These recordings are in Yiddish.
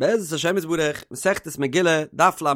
בעזרת השם יתברך, מסכת מגילה, דף ל"א,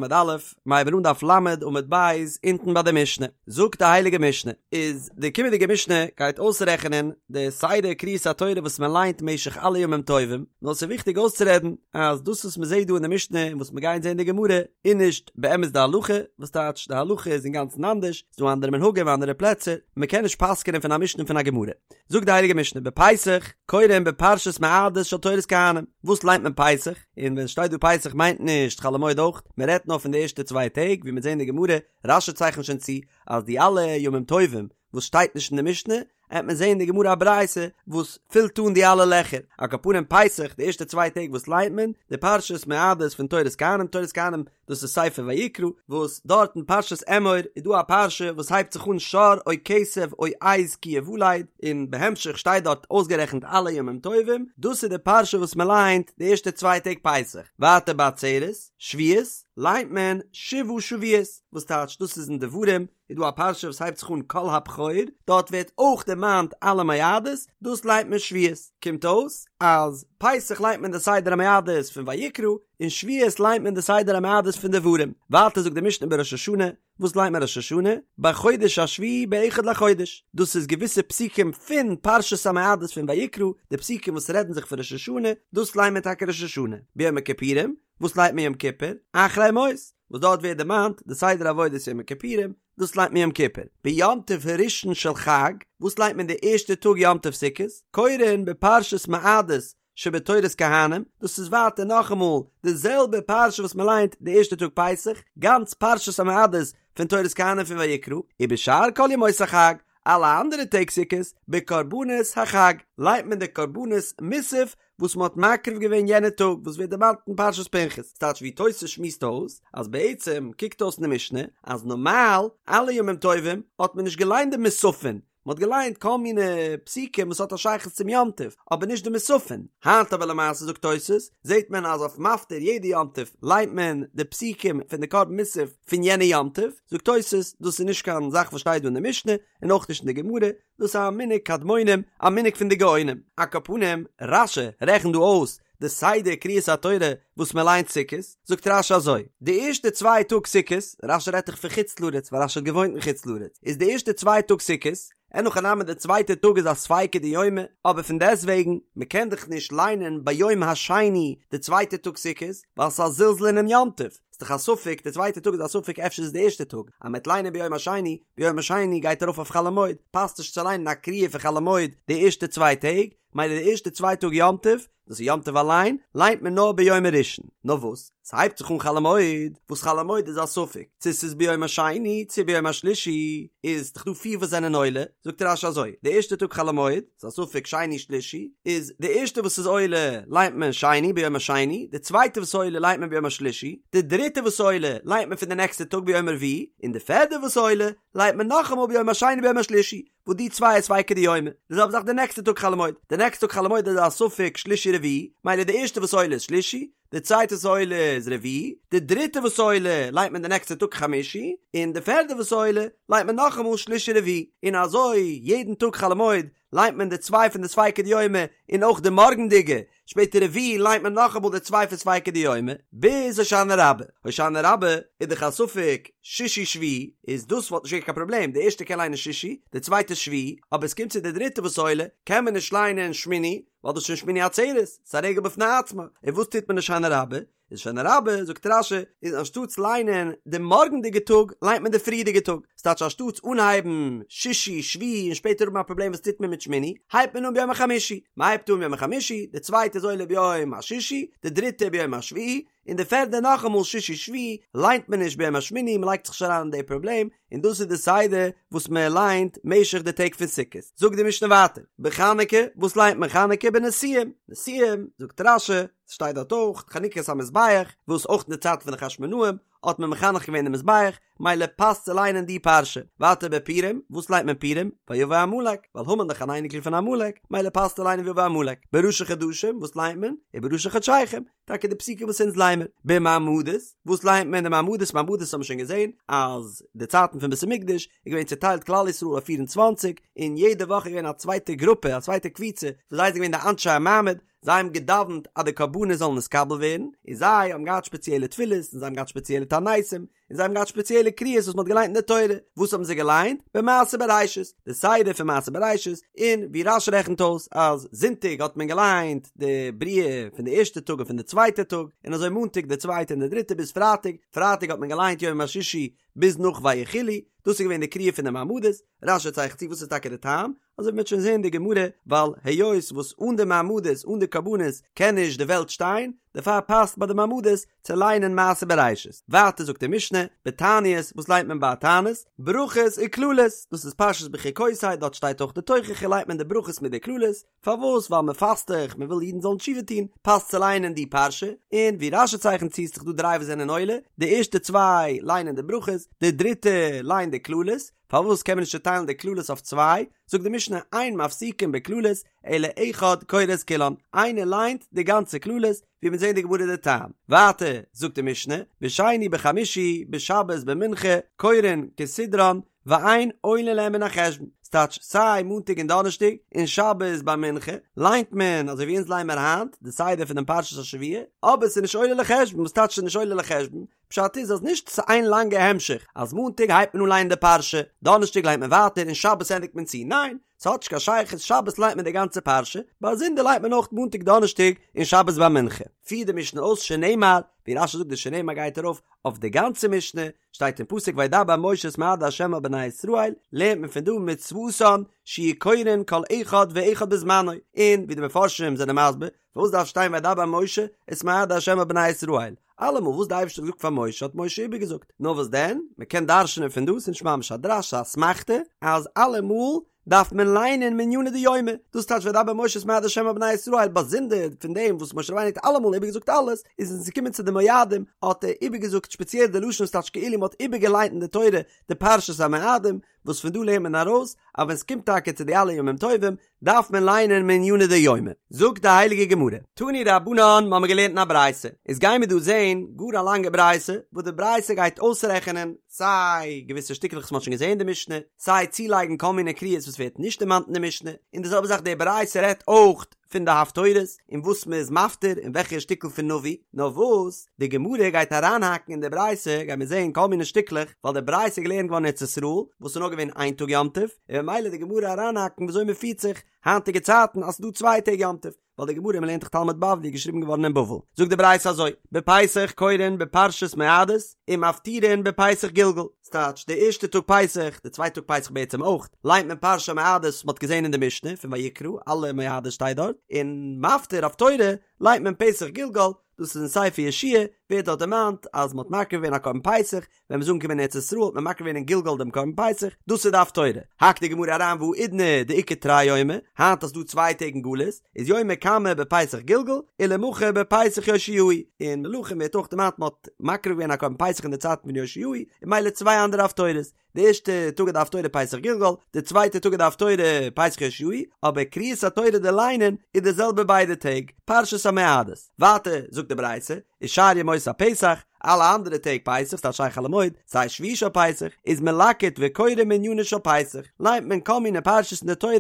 מיר הייבן אן דף ל' עמוד ב', אונטן ביי די משנה. זאגט די הייליגע משנה, איז די קומענדיגע משנה גייט אויסרעכענען די סדר קריאת התורה וואס מען ליינט משך אלע ימים טובים, נאר ס'איז וויכטיג אויסצורעדן אז דאס וואס מען זעט דא אין די משנה און וואס מיר גייען זען אין די גמרא איז נישט באמת די הלכה, וואס טייטש די הלכה איז אינגאנצן אנדערש, ס'איז דא אנדערע מנהגים אנדערע פלעצער, מען קען נישט פסק'ענען פון א משנה און פון א גמרא. זאגט די הייליגע משנה בפסח קורין בפרשת מועדות של תורת כהנים, וואס ליינט מען פסח? און ווען שטייט דא פסח מיינט נישט חול המועד אויך, מען רעדט נאר פון די ערשטע צוויי טעג, ווי מיר זעהן אין די גמרא, רש"י צייכנט שוין צו אז די אלע ימים טובים וואס שטייט נישט אין די משנה, עט מען זעהן אין די גמרא א ברייתא וואס פילט אן די אלע לעכער, על כל פנים פסח די ערשטע צוויי טעג וואס ליינט מען? די פרשת מועדות פון תורת כהנים, תורת כהנים דאס איז ספר ויקרא, וואס דארט אין פרשת אמור איז דא א פרשה וואס הייבט זיך אן שור או כשב או עז כי יולד, און בהמשך שטייט דארט אויסגערעכנט אלע ימים טובים, דאס איז די פרשה וואס מען ליינט די ערשטע צוויי טעג פסח, ווייטער בעצרת, שבועות, ליינט מען שבעה שבועות, וואס טייטש דאס איז אין דברים, איז דא א פרשה וואס הייבט זיך אן כל הבכור, דארט ווערט אויך דערמאנט אלע מועדות, דאס ליינט מען שבועות, קומט אויס אז פסח ליינט מען די סדר המועדות פון ויקרא, און שבועות ליינט מען די סדר המועדות פון דברים. ווייטער זאגט די משנה בראש השנה, וואס ליינט מען ראש השנה? בחודש השביעי באחד לחודש, דאס איז געוויסע פסוקים פון פרשת המועדות פון ויקרא, די פסוקים וואס רעדן זיך פון ראש השנה, דאס ליינט מען טאקע ראש השנה. ביום הכיפורים, וואס ליינט מען יום כיפור? אחרי מות, וואס דארט ווערט דערמאנט די סדר עבודת יום הכיפורים, דאס ליינט מען יום כיפור. ביום טוב הראשון של חג, וואס ליינט מען די ערשטע טאג יום טוב סוכות? קורין בפרשת מועדות שבתורת כהנים, דאס איז ווייטער נאכאמאל די זעלבע פרשה וואס מען ליינט די ערשטע טאג פסח, גאנץ פרשת המועדות פון תורת כהנים פון ויקרא, ובשאר כל ימות החג, אלע אנדערע טעג סוכות, בקרבנות החג, ליינט מען די קרבנות מוסף וואס מען האט מקריב געווען יענע טאג וואס ווערט דערמאנט אין פרשת פנחס, ס'טייטש ווי תוס' שמועסט אויס אז בעצם קוקט אויס אין די משנה אז נארמאל אלע ימים טובים האט מען נישט געליינט די מוספין, מען האט געליינט כל מיני פסוקים וואס האט א שייכות צום יום טוב, אבער נישט די מוספין. היינט אבער למעשה זאגט תוס', זעט מען אז אויף מפטיר יעדע יום טוב ליינט מען די פסוקים פון די קרבן מוסף פון יענע יום טוב, זאגט תוס' דאס איז נישט קיין זאך וואס שטייט דא אין די משנה, און אויך נישט אין די גמרא, דאס איז א מנהג קדמונים, א מנהג פון די גאונים. על כל פנים, רש"י רעכנט דא אויס די סדר קריאת התורה וואס מען ליינט סוכות, זאגט רש"י אזוי, די ערשטע צוויי טאג סוכות, רש"י רעדט דאך פון חוץ לארץ ווייל רש"י האט געוואוינט אין חוץ לארץ, איז די ערשטע צוויי טאג סוכות, אין הכי נמי די צווייטע טאג איז א ספיקא דיומא, אבער פון דעסטוועגן, מען קען דאך נישט ליינען ביום השני די צווייטע טאג סוכות, ווייל ס'איז א זלזול אינעם יום טוב, ס'איז דאך א ספק, די צווייטע טאג איז א ספק אפשר איז די ערשטע טאג, אז מ'וועט ליינען ביום השני, ביום השני גייט ארויף אויף חול המועד, פאסט נישט צו ליינען א קריאה פון חול המועד די ערשטע צוויי טעג, מילא די ערשטע צוויי טאג יום טוב, דאס איז יום טוב אליין, ליינט מען נאר ביום הראשון. נאר וואס? ס'הייבט זיך אן חול המועד, וואס חול המועד איז א ספק, צו ס'איז ביום השני צו ביום השלישי, איז דאך דא פיר וואס זענען עולה, זאגט רש"י אזוי, די ערשטע טאג חול המועד, ס'איז א ספק שני שלישי, איז די ערשטע וואס איז עולה ליינט מען שני ביום השני, די צווייטע וואס עולה ליינט מען ביום השלישי, די דריטע וואס עולה ליינט מען פון די נעקסטע טאג ביום הרביעי, און די פערדע וואס עולה ליינט מען נאכאמאל ביום השני ביום השלישי. וואס די צוויי איז ספיקא דיומא, די זעלבע זאך די נעקסטע טאג חול המועד, די נעקסטע טאג חול המועד איז א ספק שלישי רביעי, מילא די ערשטע וואס עולה איז שלישי, די צווייטע וואס עולה איז רביעי, די דריטע וואס עולה ליינט מען די נעקסטע טאג חמישי, און די פערדע וואס עולה ליינט מען נאכאמאל שלישי רביעי, און אזוי יעדן טאג חול המועד ליינט מען די צוויי פון די ספיקא דיומא און אויך די מארגנדיגע, שפעטער רביעי ליינט מען נאכאמאל די צוויי פון ספיקא דיומא, ביז הושענא רבה. הושענא רבה איז דאך א ספק שישי שביעי, איז דאס וואלט נישט געווען קיין פראבלעם, די ערשטע קען ליינען שישי, די צווייטע שביעי, אבער עס קומט צו די דריטע וואס עולה, קען מען נישט ליינען שמיני, ווייל דאס איז שוין שמיני עצרת, ס'איז א רגל בפני עצמה, און וואס טוט מען הושענא רבה? איז הושענא רבה, זאגט רש"י, איז אנשטאטס ליינען די מארגנדיגע טאג, ליינט מען די פריערדיגע טאג. ס'טייטש אנשטאטס אנהייבן שישי, שביעי און שפעטער האבן א פראבלעם וואס טוט מען מיט שמיני, הייבט מען אן ביום החמישי. מ'הייבט אן ביום החמישי, די צווייטע איז עולה ביום השישי, די דריטע ביום השביעי, און די פערדע נאכאמאל שישי שביעי, ליינט מען נישט ביום השמיני, מ'לייגט זיך נישט אריין אין די פראבלעם, און דאס איז די סדר וואס מען ליינט משך די טעג פון סוכות. זאגט די משנה ווייטער, בחנוכה, וואס ליינט מען חנוכה? בנשיאים, נשיאים, זאגט רש"י, ס'שטייט דארט אויך, חנוכת המזבח, וואס אויך אין די צייט פון די חשמונאים האט מען מחנך געווען די מזבח, מילא פאסט צו ליינען די פרשה. ווייטער בפורים, וואס ליינט מען פורים? ויבא עמלק, ווייל המן דאך אן אייניקל פון עמלק, מילא פאסט צו ליינען ויבא עמלק. בראשי חדשים, וואס ליינט מען? ובראשי חדשיכם, טאקע די פסוקים וואס אונז ליינען. במעמדות, וואס ליינט מען די מעמדות? מעמדות האבן מיר שוין געזען אז די צייטן פון בית המקדש איז געווען צוטיילט כלל ישראל אויף פיר און צוואנציג, און יעדע וואך איז געווען א צווייטע גרופע, א צווייטע קבוצה, וואס זיי זענען געווען די אנשי המעמד, זיי האבן געדאווענט אז די קרבנות זאלן נתקבל ווערן, און זיי האבן געהאט שפעציעלע תפילות, און זיי האבן געהאט שפעציעלע תעניתים, און זיי האבן געהאט שפעציעלע קריאות וואס מען האט געליינט אין די תורה, וואס האבן זיי געליינט? במעשה בראשית, די סדר פון מעשה בראשית, און ווי רש"י רעכנט אויס אז זונטאג האט מען געליינט די בריאה פון די ערשטע טאג און פון די צווייטע טאג, און אזוי מאנטאג די צווייטע און די דריטע ביז פרייטאג, פרייטאג האט מען געליינט יום השישי ביז נאך ויכולו, דאס איז געווען די קריאה פון די מעמדות, רש"י צייכנט צו וואס איז טאקע די טעם, אזוי ווי מ'וועט שוין זעהן אין די גמרא, ווייל היות וואס אן די מעמדות אן די קרבנות קען נישט די וועלט שטיין, דערפאר פאסט ביי די מעמדות צו ליינען מעשה בראשית. ווייטער זאגט די משנה, בתעניות, וואס ליינט מען ביי א תענית? ברכות וקללות, דאס איז פרשת בחוקותי, דארט שטייט אויך די תוכחה ליינט מען די ברכות מיט די קללות, פארוואס? ווייל מען פאסט דאך, מען וויל אידן זאלן תשובה טון, פאסט צו ליינען די פרשה, און ווי רש"י צייכנט צו איז דאך דא דריי וואס זענען עולה, די ערשטע צוויי ליינען די ברכות, די דריטע ליינט די קללות, פארוואס קען מען נישט צוטיילן די קללות אויף צוויי? זאגט די משנה אין מפסיקין בקללות אלא אחד קורא את כולן, איינער ליינט די גאנצע קללות, ווי מיר זעהן אין די גמרא די טעם. ווייטער זאגט די משנה, בשני בחמישי בשבת במנחה קורין כסדרן ואין עולין להם מן החשבון, ס'טייטש סיי מאנטאג און דאנערשטאג און שבת ביי מנחה ליינט מען אזוי ווי אונז ליינען מיר היינט די סדר פונעם פרשת השבוע, אבער ס'איז נישט עולה לחשבון, וואס טייטש ס'איז נישט עולה לחשבון? פשט איז אז נישט ס'איז איין לאנגע המשך אז מאנטאג הייבט מען אן ליינען די פרשה, דאנערשטאג ליינט מען ווייטער און שבת ענדיגט מען צו, ניין, ס'האט נישט קיין שייכות, שבת ליינט מען די גאנצע פרשה, באזונדער ליינט מען אויך מאנטאג דאנערשטאג און שבת ביי מנחה. פירט די משנה אויס שנאמר, ווי רש"י זאגט די שנאמר גייט ארויף אויף די גאנצע משנה, שטייט אין פסוק וידבר משה את מועדי ה' אל בני ישראל, לערנט מען פון דא מצוותן שיהו קורין כל אחד ואחד בזמנו, און ווי די מפרשים זענען מסביר, פארוואס דארף שטיין וידבר משה את מועדי ה' אל בני ישראל? אלעמאל וואס די אייבערשטער האט געזאגט פאר משה האט משה איבערגעזאגט, נאר וואס דען, מען קען דרש'נען פון דא, ס'איז נישט ממש א דרש, ס'איז א אסמכתא, אז אלעמאל דארף מען ליינען מעניני דיומא, דאס טייטש וידבר משה את מועדי ה' אל בני ישראל, באזונדער פון דעם וואס משה רבינו האט אלעמאל איבערגעזאגט אלעס, איז ווען ס'איז געקומען צו די מועדים האט ער איבערגעזאגט שפעציעל די לשון ס'טייטש כאילו מ'האט איבערגעליינט אין די תורה די פרשת המועדים, וואס פון דא לערנט מען ארויס אז ווען ס'קומט טאקע צו די אלע ימים טובים דארף מען ליינען מעניני דיומא. זאגט די הייליגע גמרא, תנו רבנן, מ'האמיר געלערנט אין א ברייתא, איז גייען מיר דא זעהן גאר א לאנגע ברייתא, וואס די ברייתא גייט אויסרעכענען סיי געוויסע שטיקלעך וואס מ'האט שוין געזעהן אין די משנה, סיי צולייגן כל מיני קריאות וואס ווערט נישט דערמאנט אין די משנה, און די זעלבע זאך די ברייתא רעדט אויך פון די הפטורות און וואס מען איז מפטיר און וועלכע שטיקל פון נביא, נאר וואס די גמרא גייט אריינהאקן אין די ברייתא גייט מען זעהן כל מיני שטיקלעך, ווייל די ברייתא איז געלערנט געווארן אין ארץ ישראל וואס איז נאר געווען איין טאג יום טוב, און ממילא די גמרא אריינהאקן וויאזוי מען פירט זיך היינטיגע צייטן אז ס'איז דא צוויי טעג יום טוב. ווייל די גמרא מ'לערנט דאך תלמוד בבלי איז געשריבן געווארן אין בבל, זאגט די ברייתא אזוי, בפסח קורין בפרשת מועדות ומפטירין בפסח גלגל, ס'טייטש די ערשטע טאג פסח, די צווייטע טאג פסח בעצם אויך, ליינט מען פרשת המועדות וואס מ'האט געזען אין די משנה פון ויקרא, אלע מועדות שטייט דארט, און מפטיר הפטורה ליינט מען פסח גלגל, דאס איז אין ספר יהושע ווערט דארט דערמאנט אז מ'האט מקריב געווען א קרבן פסח, ווען מ'איז אנגעקומען אין ארץ ישראל האט מען מקריב געווען אין גלגל דעם קרבן פסח, דאס איז די הפטורה. האקט די גמרא אריין והאידנא דאיכא תרי יומי, היינט אז ס'דא צוויי טעג אין גלות, איז יומא קמא בפסח גלגל, ולמחר בפסח יאשיהו, אין מלכים ווערט אויך דערמאנט מ'האט מקריב געווען א קרבן פסח אין די צייטן פון יאשיהו, און ממילא צוויי אנדערע הפטורות. די ערשטע טאג איז די הפטורה פסח גלגל, די צווייטע טאג איז די הפטורה פסח יאשיהו, אבער קריאת התורה די ליינען איז די זעלבע ביידע טעג, פרשת המועדות. ווייטער זאגט די ברייתא, ושאר ימות הפסח, אלע אנדערע טעג פסח, ס'טייטש סיי חול המועד, סיי שביעי של פסח, איז מלקט וקורא מעניינו של פסח, ליינט מען כל מיני פרשות אין די תורה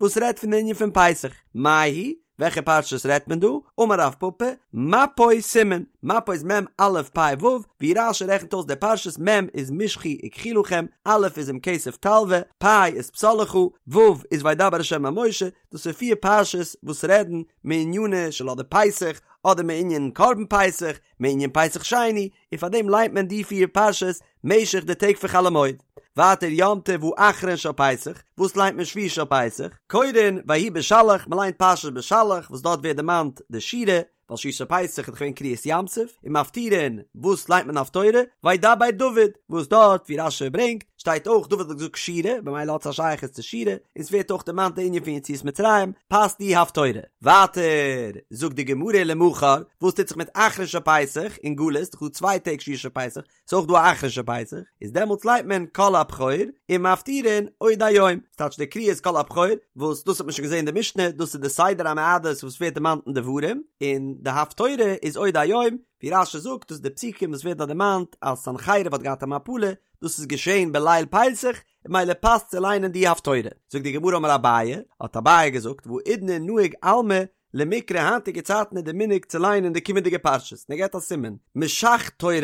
וואס רעדט פון די ענין פון פסח. מאי היא? וועלכע פרשות רעדט מען דא? אמר רב פפא, מפוי סימן, מפוי איז מ' א' פ' ו', ווי רש"י רעכנט אויס די פרשות, מ' איז משכו וקחו לכם, א' איז אם כסף תלוה, פ' איז פסל לך, ו' איז וידבר ה' אל משה, דאס איז פיר פרשות וואס רעדן מענינו של אדער פסח, אדער מענין קרבן פסח, מענין פסח שני, און פאר דעם ליינט מען די פיר פרשות משך די טעג פון חול המועד. ווייטער יום טוב האחרון של פסח, וואס ליינט מען שביעי של פסח? קורין ויהי בשלח, מען ליינט פרשת בשלח וואס דארט ווערט דערמאנט די שירה, ווייל שביעי של פסח איז דאך געווען קריעת ים סוף, און מפטירין, וואס ליינט מען הפטורה? וידבר דוד, וואס דארט ווי רש"י ברענגט, שטייט אויך דוד האט געזאגט שירה, במילא האט עס א שייכות צו שירה, און ס'ווערט אויך דערמאנט די ענין פון יציאת מצרים, פאסט די הפטורה. ווייטער זאגט די גמרא למחר, וואס טוט זיך מיט אחרון של פסח אין גלות, ס'דאך דא צוויי טעג שביעי של פסח, ס'איז אויך דא א אחרון של פסח, איז דעמאלטס ליינט מען כל הבכור און מפטירין עוד היום, ס'טייטש די קריאה איז כל הבכור, וואס דאס האט מען שוין געזען אין די משנה, דאס איז די סדר המועדות וואס ווערט דערמאנט אין דברים, און די הפטורה איז עוד היום, ווי רש"י זאגט דאס איז די פסוקים וואס ווערט דארט דערמאנט אז סנחריב האט געהאט א מפלה, דאס איז געשען בליל פסח, און ממילא פאסט צו ליינען די הפטורה. זאגט די גמרא אמר אביי, האט אביי געזאגט, והאידנא נהוג עלמא. למיקרי היינטיגע צייטן איז די מנהג צו ליינען די קומענדיגע פרשות, און ער געבט א סימן, משך תורא,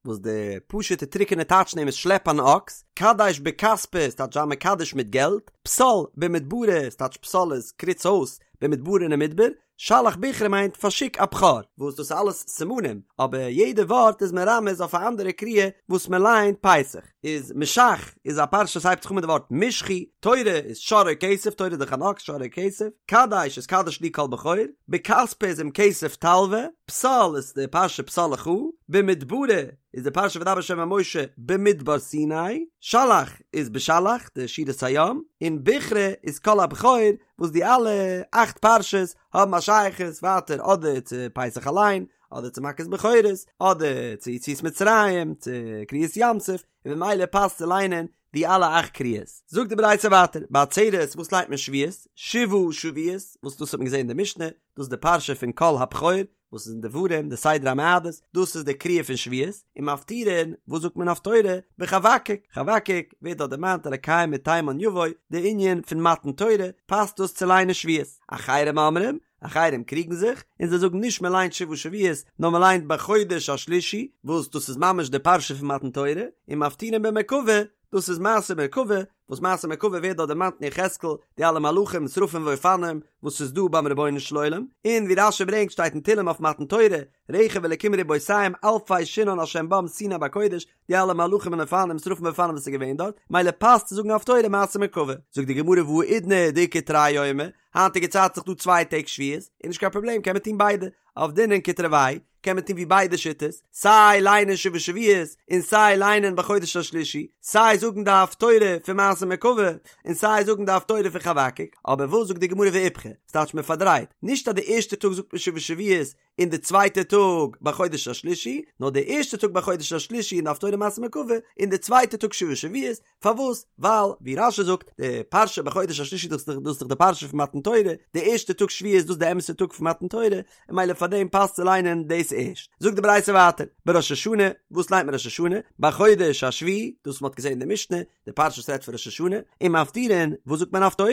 וואס די פשוטע טרוקענע טייטש פון דעם איז שלעפ אן אקס, קדש בכספא ס'טייטש זיי מקדש מיט געלט, פסל במדברא ס'טייטש פסל איז קריץ אויס, במדברא אין מדבר, שלח בכרא מיינט פארשיק א בכור, וואס דאס איז אלעס סימנים, אבער יעדע ווארט איז מרמז אויף א אנדערע קריאה וואס מען ליינט פסח. איז משך איז א פרשה וואס הייבט זיך אן מיט די ווארט משכו, תורא איז שור או כשב, תורא איז דאך אן אקס, שור או כשב, קדש איז קדש לי כל בכור, בכספא איז אם כסף תלוה, פסל איז די פרשה פסל לך, במדברא איז די פרשה וידבר ה' אל משה במדבר סיני, שלח איז בשלח די שירת הים, און בכרא איז כל הבכור, וואס די אלע אכט פרשות האבן א שייכות ווייטער אדער צו פסח אליין, אדער צו מכת בכורות, אדער צו יציאת מצרים, צו קריעת ים סוף, און ממילא פאסט צו ליינען די אלע אכט קריאות. זאגט די ברייתא ווייטער, בעצרת וואס ליינט מען שבועות? שבעה שבועות, וואס דאס האט מען געזען אין די משנה, דאס איז די פרשה פון כל הבכור, וואס איז אין דברים, די סדר המועדות, דאס איז די קריאה פון שבועות, און מפטירין, וואס זאגט מען הפטורה? בחבקוק, חבקוק ווערט דארט דערמאנט אלקי מתימן יבוא, די ענין פון מתן תורה, פאסט דאס צו ליינען שבועות. אחרים אומרים, אחרים קריגן זיך, און זיי זאגן נישט מען ליינט שבעה שבועות, נאר מען ליינט בחודש השלישי, וואס דאס איז ממש די פרשה פון מתן תורה, און מפטירין במרכבה, דאס איז מעשה מרכבה, וואס מעשה מרכבה ווערט דארט דערמאנט אין יחזקאל, די אלע מלאכים שרפים ואופנים וואס איז דא ביים רבונו של עולם, און ווי רש"י ברענגט שטייט אין תהלים אויף מתן תורה, רכב אלקים רבותים אלפי שנאן השם בם סיני בקודש, די אלע מלאכים און אופנים שרפים ואופנים וואס איז געווען דארט, מילא פאסט צו זאגן הפטורה מעשה מרכבה. זאגט די גמרא והאידנא דאיכא תרי יומי, היינטיגע צייט איז דאך דא צוויי טעג שבועות, איז נישט קיין פראבלעם קען מען טון ביידע, עבדינן כתרוייהו, קען מען טון ווי ביידע שיטות, סיי ליינען שבעה שבועות, און סיי ליינען בחודש השלישי, סיי זאגן די הפטורה פון מעשה מרכבה, און סיי זאגן די הפטורה פון חבקוק, אבער וואס זאגט די גמרא ואיפכא, ס'טייטש מען פארדרייט, נישט אז די ערשטע טאג זאגט מען שבעה שבועות, און די צווייטע טאג בחודש השלישי, נאר די ערשטע טאג בחודש השלישי און די הפטורה מעשה מרכבה, און די צווייטע טאג שבעה שבועות, פארוואס? ווייל, ווי רש"י זאגט, די פרשה בחודש השלישי דאס איז דאך די פרשה פון מתן תורה, די ערשטע טאג שבועות איז דאס די אמת'ע טאג פון מתן תורה, און מילא פאר דעם פאסט צו ליינען דאס ערשט. זאגט די ברייתא ווייטער, בראש השנה, וואס ליינט מען ראש השנה? בחודש השביעי, דאס וואס מען האט געזען אין די משנה, די פרשה וואס רעדט פון ראש השנה, און מפטירין, וואס זאגט מען הפטורה?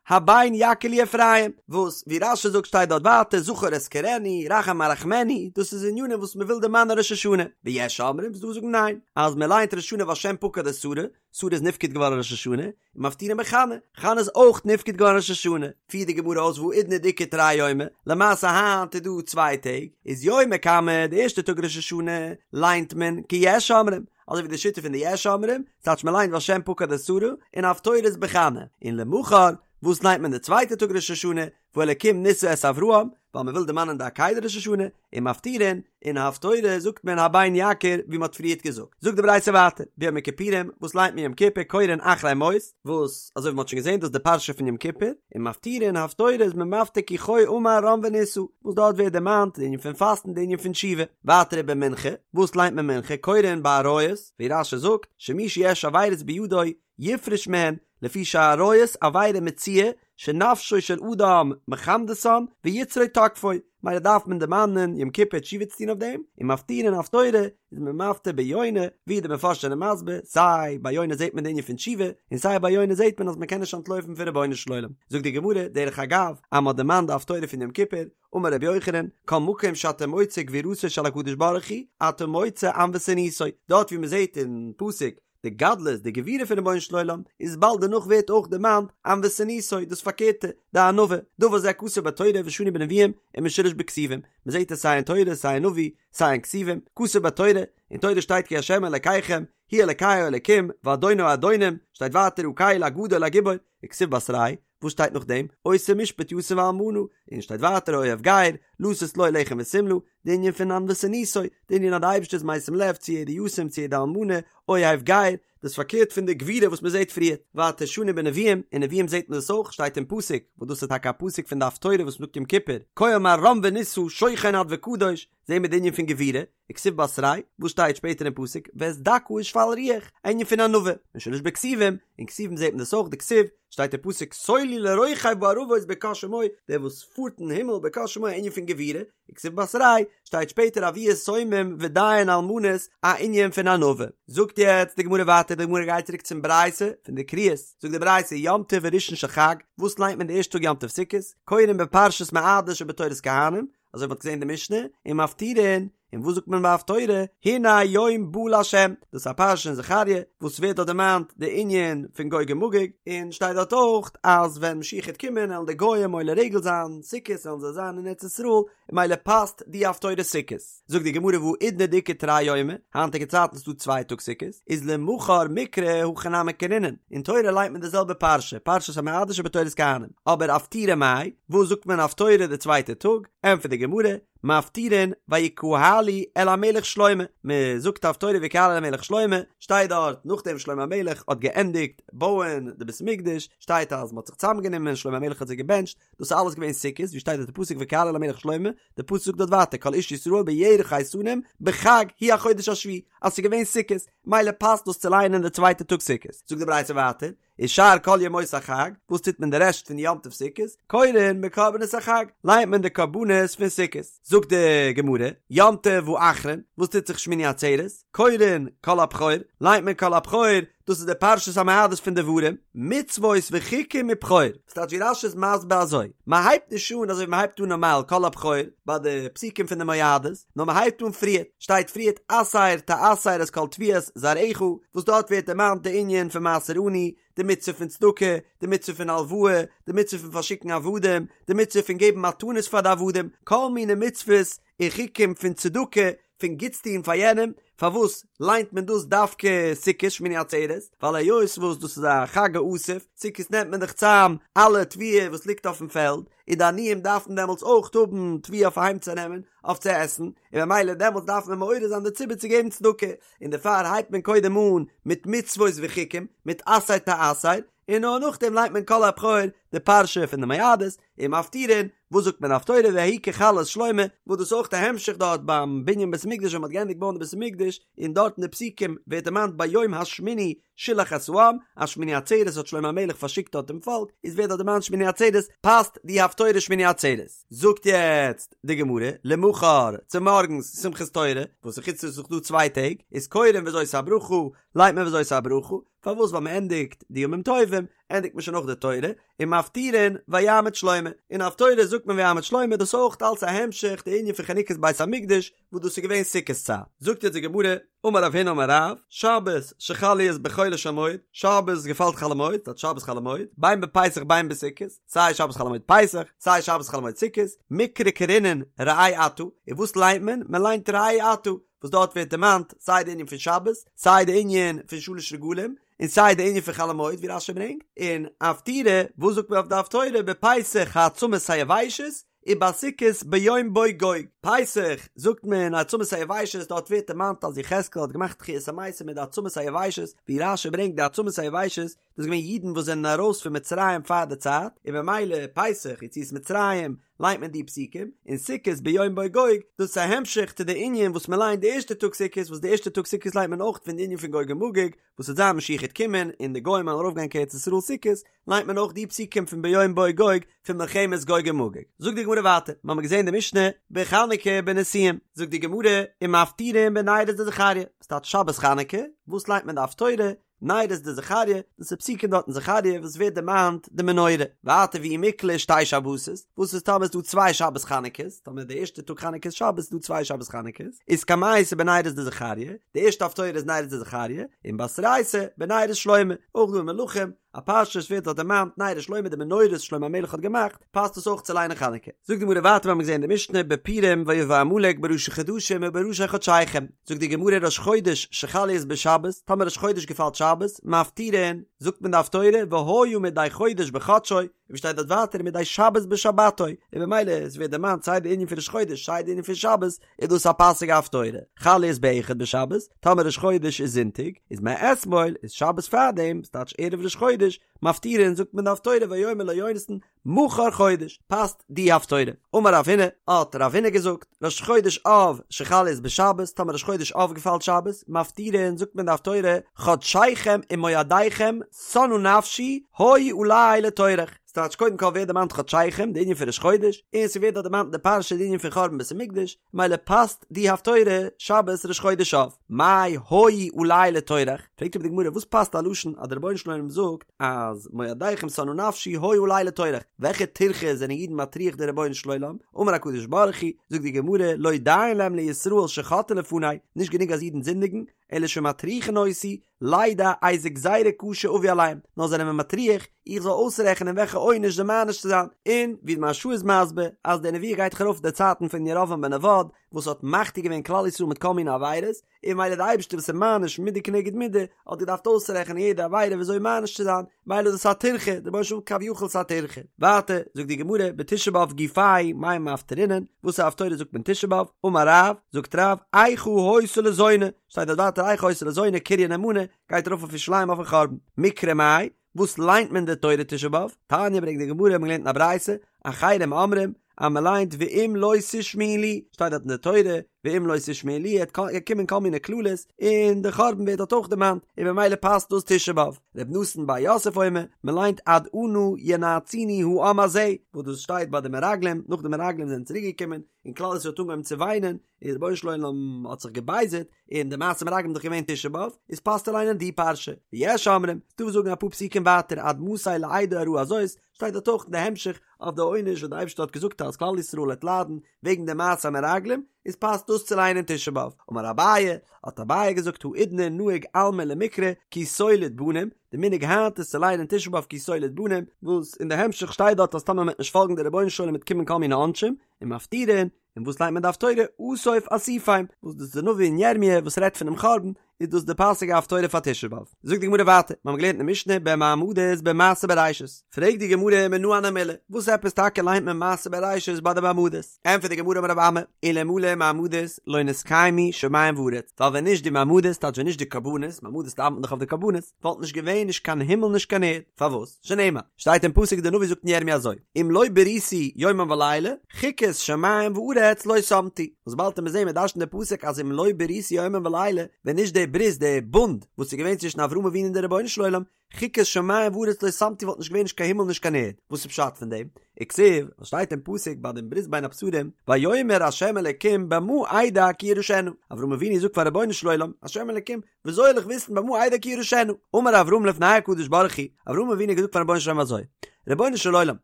הבן יכיר לי אפרים, וואס ווי רש"י זאגט שטייט דארט ווייטער זכור אזכרנו, רחם ארחמנו, דאס איז ענינים וואס מען וויל דערמאנען ראש השנה, ויש אומרים ס'דא וואס זאגן ניין, אז מען ליינט ראש השנה והשם פקד את שרה, שרה איז נפקד געווארן ראש השנה, און מפטירין בחנה, חנה איזאויך נפקד געווארן ראש השנה, פירט די גמרא אויס והאידנא דאיכא תרי יומי, למעשה היינט איז דא צוויי טעג, איז יומא קמא די ערשטע טאג ראש השנה ליינט מען כיש אומרים, אזוי ווי די שיטה פון די יש אומרים, ס'טייטש מען ליינט והשם פקד את שרה, און הפטורה איז בחנה, און למחר, וואס ליינט מען די צווייטע טאג ראש השנה, והאלקים נסה את אברהם, ווייל מען וויל דערמאנען די עקידה ראש השנה, און מפטירין, און הפטורה זאגט מען הבן יכיר ווי מען האט פריערט געזאגט. זאגט די ברייתא ווייטער, ביום הכיפורים, וואס ליינט מען יום כיפור, קורין אחרי מות, וואס אזוי ווי מען האט שוין געזען דאס איז די פרשה פון יום כיפור, און מפטירין הפטורה איז מען מפטיר כי כה אמר רם ונישא, וואס דארט ווערט דערמאנט די ענין פון פאסטן די ענין פון תשובה. ווייטער ובמנחה, וואס ליינט מען מנחה, קורין בעריות, ווי רש"י זאגט, שמי שיש עבירות בידו יפרוש מהן, לפי שהעריות עבירה מצויה שנפשו של אדם מחמדתן ויצרו תוקפו, מילא דארף מען דערמאנען יום כיפור תשובה צו טון אויף דעם, און מפטירין הפטורה איז מען מפטיר ביונה, ווי די מפרשים זענען מסביר, סיי ביי יונה זעט מען די ענין פון תשובה, און סיי ביי יונה זעט מען אז מען קען נישט אנטלויפן פון רבונו של עולם. זאגט די גמרא, דרך אגב, אז מען האט דערמאנט די הפטורה פון יום כיפור, אמר רבי יוחנן, כל מקום שאתה מוצא גבורתו של הקדוש ברוך הוא, אתה מוצא ענוותנותו, דארט ווי מען זעט אין פסוק די גדלות, די גבורה פון רבונו של עולם, איז באלד דערנאך ווערט אויך דערמאנט ענוותנותו, דאס פארקערטע, די ענווה, דבר זה כתוב בתורה ושנוי בנביאים ומשולש בכתובים, מען זעט עס סיי אין תורה סיי אין נביא, סיי אין כתובים, כתוב בתורה, אין תורה שטייט כי ה' אלקיכם, הוא אלקי האלקים, ואדון האדונים, שטייט ווייטער הקל הגדול הגיבור, וכתיב בתריה, וואס שטייט נאכדעם? עושה משפט יתום ואלמנה, און שטייט ווייטער אוהב גר, לתת לו לחם ושמלה, די ענין פון ענוותנותו, די ענין אז די אייבערשטער איז משים לב צו יעדע יתום צו יעדע אלמנה, אוהב גר, דאס פארקערט פון די גבורה וואס מען זעט פריער, ווייטער שנו בנביאים, אין נביאים זעט מען דאס אויך, שטייט אין פסוק, וואס דאס איז טאקע א פסוק פון די הפטורה וואס מען זאגט יום כיפור, כה אמר רם ונישא שוכן עד וקדוש, זעהן מיר די ענין פון גבורה, וכתיב בתריה, וואס שטייט שפעטער אין פסוק, ואת דכא ושפל רוח, א ענין פון ענווה, ומשולש בכתובים, אין כתובים זעט מען דאס אויך, דכתיב, שטייט אין פסוק סולו לרוכב בערבות בקה שמו, דער וואס פארט אין הימל בקה שמו א ענין פון גבורה, וכתיב בתריה, שטייט שפעטער אבי יתומים ודיין אלמנות א ענין פון ענווה. זאגט יעצט די גמרא ווייטער, די גמרא גייט צוריק צום ברייתא פון די קריאות, זאגט די ברייתא יום טוב הראשון של חג, וואס ליינט מען די ערשטע טאג יום טוב סוכות, קורין בפרשת מועדות שבתורת כהנים, אזוי ווי מ'האט געזען אין די משנה, ומפטירין, און וואס זאגט מען ביי הפטורה, הנה יום בא לה', דאס איז א פרשה אין זכריה, וואס ווערט דארט דערמאנט די ענין פון גוג ומגוג, און שטייט דארט אויך אז ווען משיח העט קומען עלן די גוים עולה רגל זיין סוכות עלן זיי זיין אין ארץ ישראל, און ממילא פאסט די הפטורה סוכות. זאגט די גמרא והאידנא דאיכא תרי יומי, היינטיגע צייטן איז דא צוויי טאג סוכות, איז למחר מיקרי הכי נמי קרינן, אין תורה ליינט מען די זעלבע פרשה, פרשת המועדות שבתורת כהנים, אבער אפטורי מאי, וואס זאגט מען הפטורה די צווייטע טאג, ענטפערט די גמרא, מפטירין ויקהלו אל המלך שלמה, מען זאגט הפטורה ויקהלו אל המלך שלמה, שטייט דארט נאכדעם שלמה המלך האט געענדיגט בויען די בית המקדש, שטייט אז מען האט זיך צוזאמגענומען שלמה המלך האט זיי געבענטשט, דאס איז אלעס געווען סוכות, ווי שטייט דארט די פסוק ויקהלו אל המלך שלמה, די פסוק זאגט דארט ווייטער כל איש ישראל בירח האיתנים בחג הוא החודש השביעי, אז ס'איז געווען סוכות, מילא פאסט דאס צו לייענען די צווייטע טאג סוכות, זאגט די ברייתא ווייטער, ושאר כל ימות החג, וואס טוט מען די רעשט פון יום טוב סוכות? קורין בקרבנות החג, לייענט מען די קרבנות פון סוכות. זאגט די גמרא, יום טוב האחרון, וואס טוט זיך שמיני עצרת? קורין כל הבכור, לייענט מען כל הבכור, דאס איז די פרשת המועדות פון דברים, מצוות וחוקים מבכור. ס'טייטש ווי רש"י איז מסביר אזוי, מען הייבט נישט אן אזוי ווי מען הייבט אן נארמאל כל הבכור ביי די פסוקים פון די מועדות, נאר מען הייבט אן פריערט, שטייט פריערט עשר תעשר את כל תבואת זרעך, וואס דארט ווערט דערמאנט די ענין פון מעשר עני, די מצוה פון צדקה, די מצוה פון הלוואה, די מצוה פון פארשיקן עבדים, די מצוה פון געבן מתנות פאר די עבדים, כל מיני מצוות און חוקים פון צדקה, פון גוטס טון פאר יענעם, פארוואס ליינט מען דאס דווקא סוכות שמיני עצרת? ווייל היות וואס דאס איז א חג האסיף, סוכות נעמט מען דאך צאם אלע תבואה וואס ליגט אויפן פעלד, און די עניים דארפן דעמאלטס אויך האבן תבואה אויף אהיים צו נעמען, אויף צו עסן, און ממילא דעמאלטס דארף מען מעורר זיין די ציבור צו געבן צדקה, און דערפאר הייבט מען קודם אן מיט מצוות וחוקים, מיט עשר תעשר, און נאר נאכדעם ליינט מען כל הבכור, די פרשה פון די מועדות, און מפטירין, וואס זאגט מען הפטורה ויהי ככלות שלמה, וואס דאס איז אויך א המשך דארט ביים בנין בית המקדש ווען מען האט געענדיגט בויען די בית המקדש, און דארט אין די פסוקים ווערט דערמאנט ביום השמיני שילח את העם, אז שמיני עצרת האט שלמה המלך פארשיקט דארט דעם פאלק, איז ווערט דארט דערמאנט שמיני עצרת, פאסט די הפטורה שמיני עצרת. זאגט יעצט די גמרא, למחר, צומארגנס שמחת תורה, וואס אין חוץ לארץ איז דאך דא צוויי טעג, איז קורין וזאת הברכה, ליינט מען וזאת הברכה, פארוואס ווייל מען ענדיגט די ימים טובים, ענדיגט מען שוין אויך די תורה, און מפטירין ויעמד שלמה, אין הפטורה זאגט מען ויעמד שלמה, דאס אויך אלץ א המשך די ענין פון חנוכת בית המקדש, וואס דאס איז געווען סוכות צייט. זאגט יעצט די גמרא, אמר רב הונא אמר רב, שבת שחל להיות בחולו של מועד, שבת געפאלט חול המועד, ס'טייטש שבת חול המועד, בין בפסח בין בסוכות, סיי שבת חול המועד פסח, סיי שבת חול המועד סוכות, מקרי קרינן ראה אתה, און וואס ליינט מען? מען ליינט ראה אתה, וואס דארט ווערט דערמאנט סיי די ענין פון שבת, סיי די ענין פון שלש רגלים, און סיי די ענין פון חול המועד ווי רש"י ברענגט, און אפטורי, וואס זאגט מען אויף די הפטורה, בפסח העצמות היבשות, ובסוכות ביום בא גוג, פסח זאגט מען העצמות היבשות, דארט ווערט דערמאנט אז יחזקאל האט געמאכט תחיית המתים מיט די עצמות היבשות, ווי רש"י ברענגט די עצמות היבשות, דאס איז געווען אידן וואס זענען ארויס פון מצרים פאר די צייט, און ממילא פסח יציאת מצרים ליינט מען די פסוקים, און סוכות ביום בא גוג, דאס איז א המשך צו די ענין וואס מען ליינט די ערשטע טאג סוכות, וואס די ערשטע טאג סוכות ליינט מען אויך פון די ענין פון גוג ומגוג, וואס וועט זיין משיח העט קומען און די גוים וועלן ארויפגיין קיין ארץ ישראל סוכות, ליינט מען אויך די פסוקים פון ביום בא גוג פון מלחמת גוג ומגוג. זאגט די גמרא ווייטער, מיר האבן געזען די משנה בחנוכה בנשיאים, זאגט די גמרא ומפטירין בנרות דזכריה, וואס טייטש שבת חנוכה, וואס ליינט מען די הפטורה, נרות דזכריה, דאס איז פסוקים דארט אין זכריה וואס ווערט דערמאנט די מנורה, ווייטער ואי מיקלע שתי שבתות, וואס איז טאמער איז דא צוויי שבת חנוכות, טאמער די ערשטע טאג חנוכה איז שבת איז דא צוויי שבת חנוכות, איז קמייתא בנרות דזכריה, די ערשטע הפטורה איז נרות דזכריה, און בתרייתא בנרות שלמה, אויך דא אין מלכים, א פרשה וואס ווערט דארט דערמאנט נרות שלמה די מנורות שלמה המלך האט געמאכט, פאסט עס אויך צו ליינען חנוכה. זאגט די גמרא ווייטער מיר האבן געזען אין די משנה בפורים ויבא עמלק בראשי חדשים ובראשי חדשיכם, זאגט די גמרא ראש חודש שחל להיות בשבת, טאמער ראש חודש געפאלט שבת, מפטירין, זאגט מען די הפטורה והיה מדי חודש בחדשו, און ווי שטייט דארט ווייטער מדי שבת בשבתו, און במילא עס ווערט דערמאנט סיי די ענין פון ראש חודש סיי די ענין פון שבת, איז דאס א פאסיגע הפטורה. חל להיות באחד בשבת, טאמער ראש חודש איז זונטאג, איז מאתמול, איז שבת פארדעם, ס'טייטש ערב ראש חודש, מפטירין זאגט מען די הפטורה ויאמר לו יונתן. מחר חודש, פאסט די הפטורה. אמר רב הונא, האט רב הונא געזאגט, ראש חודש אב שחל להיות בשבת, טאמער ראש חודש אב געפאלט שבת, מפטירין זאגט מען די הפטורה, חדשיכם ומועדיכם שנאה נפשי, היו עלי לטורח. ס'טייטש קודם כל ווערט דערמאנט חדשיכם, די ענין פון ראש חודש, און ס'ווערט דארט דערמאנט אין די פרשה די ענין פון חורבן בית המקדש, מילא פאסט די הפטורה שבת ראש חודש אב. מאי היו עלי לטורח? פרעגט אבער די גמרא וואס פאסט א לשון אז דער רבונו של עולם זאגט אז מועדיכם שנאה נפשי היו עלי לטורח, וועלכע טירחה זענען אידן מטריח דער רבונו של עולם? אמר הקדוש ברוך הוא, זאגט די גמרא, לא דיין להם לישראל שחוטאין לפני, נישט גענוג אז אידן זינדיגן, אלא שמטריחין אותי, לידע איזה גזירה קשה אביא עליהם, נאר זענען מיר מטריח איך זאל אויסרעכענען וועלכע עונש זיי מעניש צו זיין, און ווי די מהרש"א איז מסביר אז די נבואה גייט דאך ארויף די צייטן פון ירבעם בן נבט וואס האט מחטיא געווען כלל ישראל מיט כל מיני עבירות, און מילא די אייבערשטער וואס איז מעניש מידה כנגד מידה האט געדארפט אויסרעכענען יעדע עבירה וויאזוי מעניש צו זיין, מילא איז דאס א טירחה, דער רבונו של עולם כביכול ס'א טירחה. ווייטער זאגט די גמרא בתשעה באב גופיה מאי מפטרינן, וואסערע הפטורה זאגט מען תשעה באב, אמר רב, זאגט רב, איכה היתה לזונה, שטייט דארט ווייטער איכה היתה לזונה קריה נאמנה, גייט ארויף אויף ירושלים אויפן חורבן. מקרא מאי, וואס ליינט מען די תורה תשעה באב? תניא ברענגט די גמרא, מ'האט געלערנט אין א ברייתא, אחרים אומרים, אז מ'ליינט ואם לא תשמעו לי, שטייט דארט אין די תורה, ואם לא תשמעו לי, עט קומען כל מיני קללות, און די חורבן ווערט דארט אויך דערמאנט, און במילא פאסט דאס תשעה באב. ר' נתן בר יוסף אומר, מ'ליינט עד אנה ינאצוני העם הזה, וואס דאס שטייט ביי די מרגלים, נאך די מרגלים זענען צוריק געקומען, און כלל ישראל האט אנגעהויבן צו וויינען, און רבונו של עולם האט זיך געבייזערט, און די מעשה מרגלים איז דאך געווען תשעה באב, איז פאסט צו ליינען די פרשה. ויש אומרים, ס'דא וואס זאגן אפאר פסוקים ווייטער עד מתי לעדה הרעה הזאת, שטייט דארט אויך אין די המשך אויף די עונש וואס די אייבערשטער האט געזאגט אז כלל ישראל וועט ליידן וועגן די מעשה המרגלים, איז פאסט דאס צו ליינען תשעה באב. אמר אביי, האט אביי געזאגט האידנא נהוג עלמא למיקרי כי תוליד בנים, די מנהג היינט איז צו ליינען תשעה באב כי תוליד בנים, וואס אין די המשך שטייט דארט אז טאמער מען וועט נישט פאלגן די רבונו של עולם וועט קומען כל מיני עונשים, און מפטירין, און וואס ליינט מען די הפטורה אסוף אסופים, וואס דאס איז די נביא אין ירמיה וואס רעדט פונעם חורבן, איז דאס די פאסיגע הפטורה פאר תשעה באב. זאגט די גמרא ווייטער, מיר האבן געלערנט אין משנה במעמדות במעשה בראשית, פרעגט די גמרא מנא הני מילי, וואס עפעס טאקע ליינט מען מעשה בראשית ביי די מעמדות? ענטפערט די גמרא אמר רב אמי, אלמלא מעמדות לא נתקיימו שמים וארץ, ווייל ווען נישט די מעמדות, טייטש ווען נישט די קרבנות, מעמדות דאווענט מען דאך אויף די קרבנות, וואלט נישט געווען נישט קיין הימל נישט קיין ערד, פארוואס? שנאמר, שטייט אין פסוק די נביא זאגט אין ירמיה אזוי, אם לא בריתי יומם ולילה, חוקות שמים וארץ לא שמתי, וואס באלד וועט מען זעהן מען דרש'נט די פסוק אז אם לא בריתי יומם ולילה, ווען נישט די ברית די בונד וואס איז געווען צווישן אברהם אבינו און די רבונו של עולם, חוקות שמים וארץ לא שמתי וואלט נישט געווען נישט קיין הימל נישט קיין ערד, וואס איז פשט פון דעם? וכתיב, וואס שטייט אין פסוק ביי דעם ברית בין הבתרים, ויאמר ה' אלקים במה אדע כי אירשנה, אברהם אבינו זאגט פאר רבונו של עולם, ה' אלקים, וויאזוי זאל איך וויסן במה אדע כי אירשנה? אמר אברהם לפני הקדוש ברוך הוא, אברהם אבינו האט געזאגט פארן רבונו של עולם אזוי, רבונו של עולם,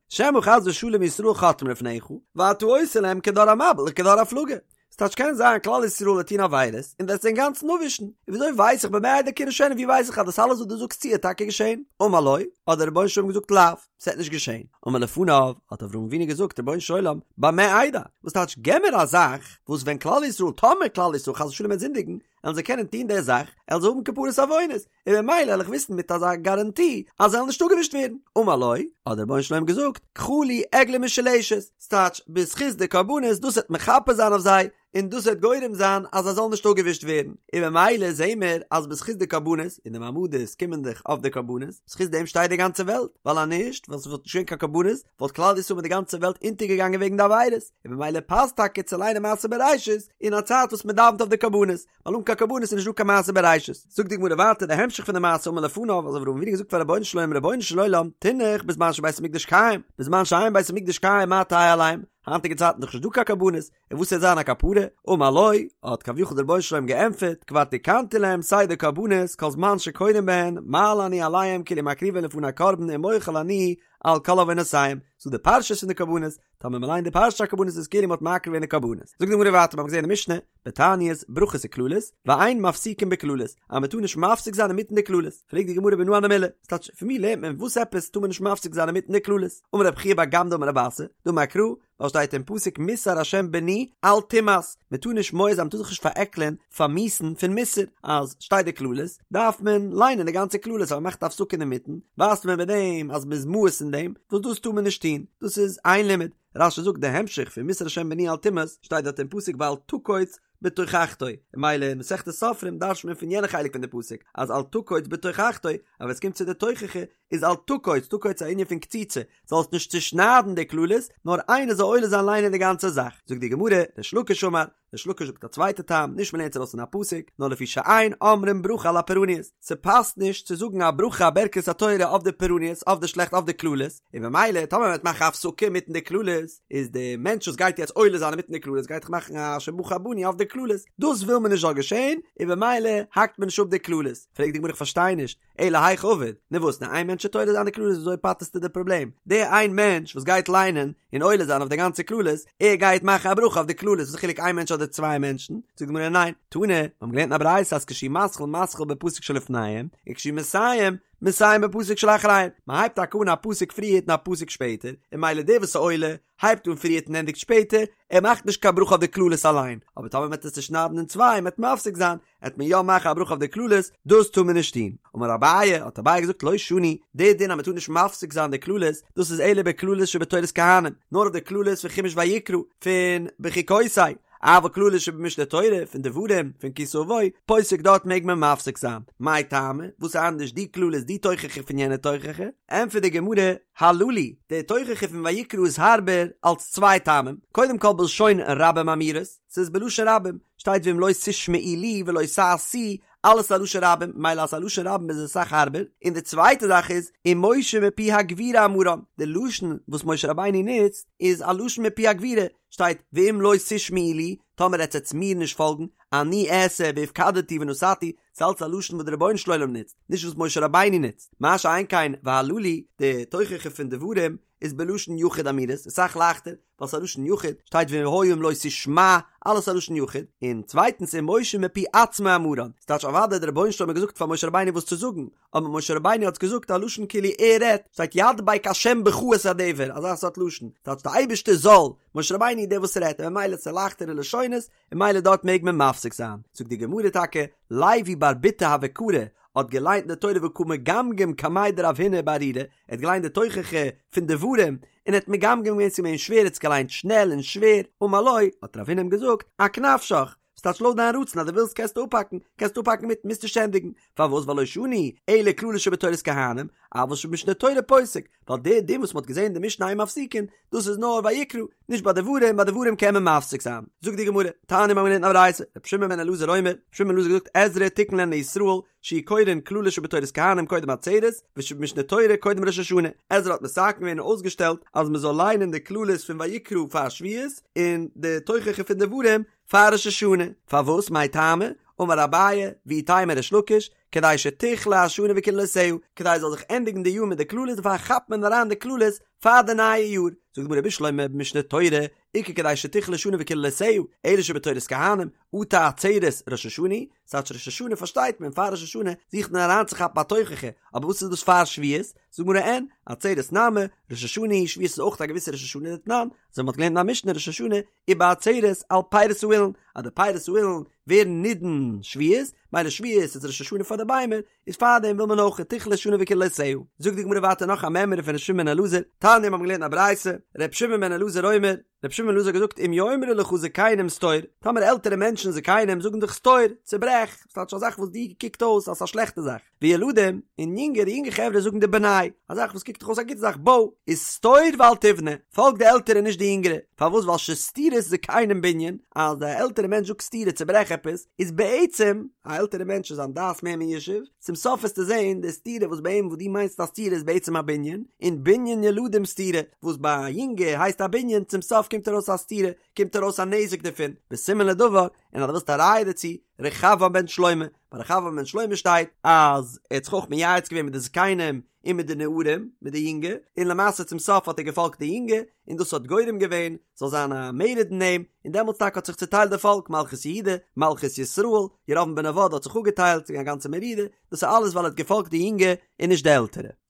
שמא חס ושלום ישראל חוטאים לפניך, ואתה עושה להם כדור המבול וכדור הפלגה. ס'טייטש קען זיין כלל ישראל וועט טון עבירות און וועסט זיי אינגאנצן אפווישן, און וויאזוי ווייס איך במה אדע כי אירשנה ווי ווייס איך אז דאס אלעס וואס דו זאגסט צו וועט טאקע געשען? אמר לו, האט דער רבונו של עולם געזאגט לאו, ס'וועט נישט געשען. אמר לפניו, האט אברהם אבינו געזאגט, רבונו של עולם, במה אדע? וואס טייטש געב מיר א זאך וואס ווען כלל ישראל, טאמער כלל ישראל חס ושלום וועט זינדיגן, וועלן זיי קענען טון די זאך, וועלן זיי האבן כפרת עוונות, און במילא וועל איך וויסן מיט אזא גאראנטי אז זיי וועלן נישט אפגעווישט ווערן. אמר לו, האט דער רבונו של עולם געזאגט, קחה לי עגלה משולשת, ס'טייטש, בזכות די קרבנות, דאס וועט מכפר זיין אויף זיי, און דאס וועט גורם זיין אז זיי זאלן נישט אפגעווישט ווערן, און במילא זעהן מיר אז בזכות די קרבנות, און די מעמדות קומען דאך אויף די קרבנות, בזכות דעם שטייט די גאנצע וועלט, ווייל אז נישט, ווען ס'וואלט נישט געווען קיין קרבנות, וואלט כלל ישראל מיט די גאנצע וועלט אונטערגעגאנגען וועגן די עבירות, און במילא פאסט טאקע צו ליינען מעשה בראשית אין א צייט וואס מען דאווענט אויף די קרבנות, ווייל אן קיין קרבנות איז נישט דא קיין מעשה בראשית. זאגט די גמרא ווייטער די המשך פון די מעשה אמר לפניו, אז אברהם אבינו האט געזאגט פאר רבונו של עולם רבונו של עולם תינח בזמן שבית המקדש קיים, בזמן שאין בית המקדש קיים מה תהא עליהם, היינטיגע צייטן איז דאך נישט דא קיין קרבנות, און וואס וועט זיין א כפרה? אמר לו, האט כביכול דער רבונו של עולם געענטפערט, כבר תיקנתי להם סדר קרבנות, כל זמן שקורין בהן, מעלה אני עליהם כאילו מקריבין לפני קרבן ומוחל אני על כל עוונותיהם, ס'דא די פרשיות פון די קרבנות, טאמער מ'ליינט די פרשת הקרבנות איז כאילו מ'האט מקריב געווען די קרבנות. זאגט די גמרא ווייטער, מ'האט געזען אין די משנה, בתעניות, ברכות וקללות, ואין מפסיקין בקללות, אז מ'טאר נישט מפסיק זיין אינמיטן די קללות. פרעגט די גמרא מנא הני מילי, ס'טייטש, פון ווי לערנט מען וואס עפעס טאר מען נישט מפסיק זיין אינמיטן די קללות? אמר רב חייא בר גמדא אמר רב אסי, דאמר קרא, ווייל שטייט אין פסוק מוסר השם בני אל תמאס, מען טאר נישט מואס זיין מען טאר זיך נישט פארעקלען פאר מיאוס'ן פון מוסר, אז שטייט די קללות דארף מען ליינען די גאנצע קללות אז מען מאכט א הפסקה אינמיטן ווייזט מען מיט דעם אז מען איז מואס אין דעם, וואס דאס טאר מען נישט טון, דאס איז איין לימוד, רש"י זאגט די המשך פון מוסר השם בני אל תמאס שטייט דארט אין פסוק ואל תקוץ. בתוכחתו, און ממילא אין מסכת סופרים דרש'נט מען פון יענע חלק פון די פסוק אז אל תקוץ בתוכחתו, אז ווען עס קומט צו די תוכחה איז אל תקוץ, תקוץ איז א ענין פון קציצה, זאלסט נישט צושניידן די קללות, נאר איינער זאל עולה זיין ליינען די גאנצע זאך. זאגט די גמרא, ריש לקיש אמר, ריש לקיש זאגט א צווייטע טעם, נישט מ'לערנט עס ארויס פון א פסוק, נאר לפי שאין אומרים ברכה על הפורעניות, ס'פאסט נישט צו זאגן א ברכה א ברכת התורה אויף די פורעניות, אויף די שלעכט, אויף די קללות, און במילא טאמער מ'וועט מאכן א הפסקה אינמיטן די קללות, איז די מענטש וואס גייט יעצט עולה זיין אינמיטן די קללות גייט דאך מאכן א אשר בחר בנו אויף די קללות, דאס וויל מען נישט זאל געשען, און במילא האקט מען נישט אפ די קללות. פרעגט די גמרא איך פארשטיי נישט, אלא היכי עביד, נו וואס, נאר איין מענטש וועט עולה זיין די קללות וויאזוי פטר'סטו די פראבלעם? די איין מענטש וואס גייט ליינען און עולה זיין אויף די גאנצע קללות, ער גייט מאכן א ברכה אויף די קללות, וואס איז חילוק איין מענטש אדער צוויי מענטשן? זאגט די גמרא ניין, תנא, מיר האבן געלערנט אין א ברייתא אז כשהוא מתחיל מתחיל בפסוק שלפניהם, וכשהוא מסיים, מסיים בפסוק שלאחריהם, מען הייבט טאקע אן א פסוק פריערט און א פסוק שפעטער, און ממילא דער וואס איז עולה, הייבט אן פריערט און ענדיגט שפעטער, ער מאכט נישט קיין ברכה אויף די קללות אליין, אבער טאמער מען וועט עס צושניידן אין צוויי און מען וועט מפסיק זיין, עט מען יא מאכן א ברכה אויף די קללות, דאס טאר מען נישט טון. אמר אביי, האט אביי געזאגט לא שנו, די דין אז מען טאר נישט מפסיק זיין די קללות, דאס איז אלא בקללות שבתורת כהנים, נאר אויף די קללות פון חומש ויקרא, פון בחוקותי, אבל קללות שבמשנה תורה, פון דברים, פון כי תבוא, פוסק דארט מעג מען מפסיק זיין. מאי טעמא, וואס איז אנדערש די קללות די תוכחה פון יענע תוכחה? ענטפערט די גמרא, הללו, די תוכחה פון ויקרא איז הארבער אלס צוויי טעמים, קודם כל בלשון רבים אמורות, ס'איז בלשון רבים, שטייט ואם לא תשמעו לי ולא תעשו, אלעס א לשון רבים, ממילא אז א לשון רבים איז עס אסאך הארבער, און די צווייטע זאך איז, ומשה מפי הגבורה אמרן, די לשון וואס משה רבינו נוצט איז א לשון מפי הגבורה, שטייט ואם לא תשמעו לי, טאמער עטס עטס מיר נישט פאלגן, אני אעשה והפקדתי ונתתי, ס'איז אלץ א לשון וואס דער רבונו של עולם נוצט, נישט וואס משה רבינו נוצט, מה שאין כן והללו, די תוכחה פון דברים איז בלשון יחיד אמורות, איז אסאך לייכטער, ווייל ס'איז א לשון יחיד, שטייט והיה אם לא תשמע, אלעס א לשון יחיד, און צווייטנס ומשה מפי עצמו אמרן, ס'טייטש אוודאי דער רבונו של עולם האט געזאגט פאר משה רבינו וואס צו זאגן, אבער משה רבינו האט געזאגט א לשון כאילו ער רעדט, שטייט ידבק השם בך את הדבר, אזא סארט לשון, ס'טייטש די אייבערשטער זאל, משה רבינו איז דער וואס רעדט, און ממילא ס'איז לייכטערע לשונות, און ממילא דארט מעג מען מפסיק זיין. זאגט די גמרא טאקע, לוי בר בוטא הוה קרי, האט געליינט די תורה וקא מגמגם קמיה דרב הונא בארורי, ער האט געליינט די תוכחה פון דברים, און ער האט מגמגם געווען ס'איז געווען שווער, ער האט עס געליינט שנעל און שווער, אמר לו, האט רב הונא אים געזאגט, אק נפשך, ס'טייטש לויט דיין רצון אז דו ווילסט קענסטו אפהאקן, קענסטו אפהאקן מיטן מוזט נישט ענדיגן, פארוואס ווייל לא שנו אלא קללות שבתורת כהנים, אבל שבמשנה תורה פוסק, ווייל די דין וואס מ'האט געזען אין די משנה אין מפסיקין, דאס איז נאר ויקרא, נישט ביי דברים, ביי דברים קען מען מפסיק זיין. זאגט די גמרא, תניא מ'האט געלערנט אין א ברייתא, רבי שמעון בן אלעזר אומר, רבי שמעון בן אלעזר האט געזאגט עזרא תיקן להן לישראל, שיהו קורין קללות שבתורת כהנים קודם עצרת, ושבמשנה תורה קודם ראש השנה. עזרא האט מתקן געווען און אויסגעשטעלט אז מ'זאל ליינען די קללות פון ויקרא פאר שבועות, און די תוכחה פון דברים פאר ראש השנה, פארוואס מאי טעמא, אמר אביי, ואיתימא ריש לקיש, כדי שתכלה השנה וקללותיה, כדי עס זאל זיך ענדיגן די יאר מיט די קללות דערפאר כאפט מען אריין די קללות פאר די נייע יאר, זאגט די גמרא בשלמא במשנה תורה, איכא כדי שתכלה שנה וקללותיה, אלא שבתורת כהנים, אטו עצרת ראש השנה, ס'טייטש ראש השנה פארשטייט מען פאר ראש השנה זוכט מען אריינצוכאפן א תוכחה, אבער וואס איז דאס פאר שבועות? זאגט די גמרא אין, עצרת נמי, ראש השנה היא, שבועות איז אויך א געוויסע ראש השנה דתנן, אזוי מ'האט געלערנט אין א משנה ראש השנה ובעצרת על פירות האילן, אז די פירות האילן ווערן נידון שבועות, מילא שבועות איז ראש השנה פאר די ביימער, איז פארדעם וויל מען אויך תכלה שנה וקללותיה. זאגט די גמרא ווייטער נאך א מימרא פון ר' שמעון בן אלעזר, תניא מיר האבן געלערנט א ברייתא, ר' שמעון בן אלעזר אומר, ר' שמעון בן אלעזר האט געזאגט אם יאמרו לך זקנים סתור, טאמער עלטערע מענטשן זקנים זאגן דיך סתור, צוברעך, ס'טייטש א זאך וואס דיר קוקט אויס אז ס'איז א שלעכטע זאך, וילדים, און יונגערע יונגע חברה זאגן דיר בנה, א זאך וואס קוקט דיך אויס א גוטע זאך, בוי, איז סתור ואל תבנה, פאלג די עלטערע נישט די יונגערע, פארוואס ווייל שסתירת זקנים בנין, אז די עלטערע מענטש זאגט סתירה צוברעך עפעס, איז בעצם, א עלטערע מענטש איז זיין דעת מער מיושב, צום סוף וועסטו זען די סתירה וואס ביי אים וואס דו מיינסט א סתירה איז בעצם א בנין, און בנין ילדים סתירה, וואס ביי א יונגע הייסט א בנין, צום סוף קומט ארויס א סתירה, קומט ארויס א נזק דערפון, וסימן לדבר, און אז דו ווילסט א ראיה דערצו, רחבעם בן שלמה, ביי רחבעם בן שלמה שטייט אז ער האט זיך אויך מייעץ געווען מיט די זקנים און מיט די נערים, מיט די יונגע, און למעשה צום סוף האט ער געפאלגט די יונגע, און דאס האט גורם געווען ס'זאל זיין א מרד אין אים, און דעמאלטס טאקע האט זיך צוטיילט די פאלק, מלכות יהודה, מלכות ישראל, ירבעם בן נבט האט זיך אפגעטיילט, ס'איז געווען א גאנצע מרידה, דאס איז אלעס ווייל ער האט געפאלגט די יונגע און נישט די עלטערע.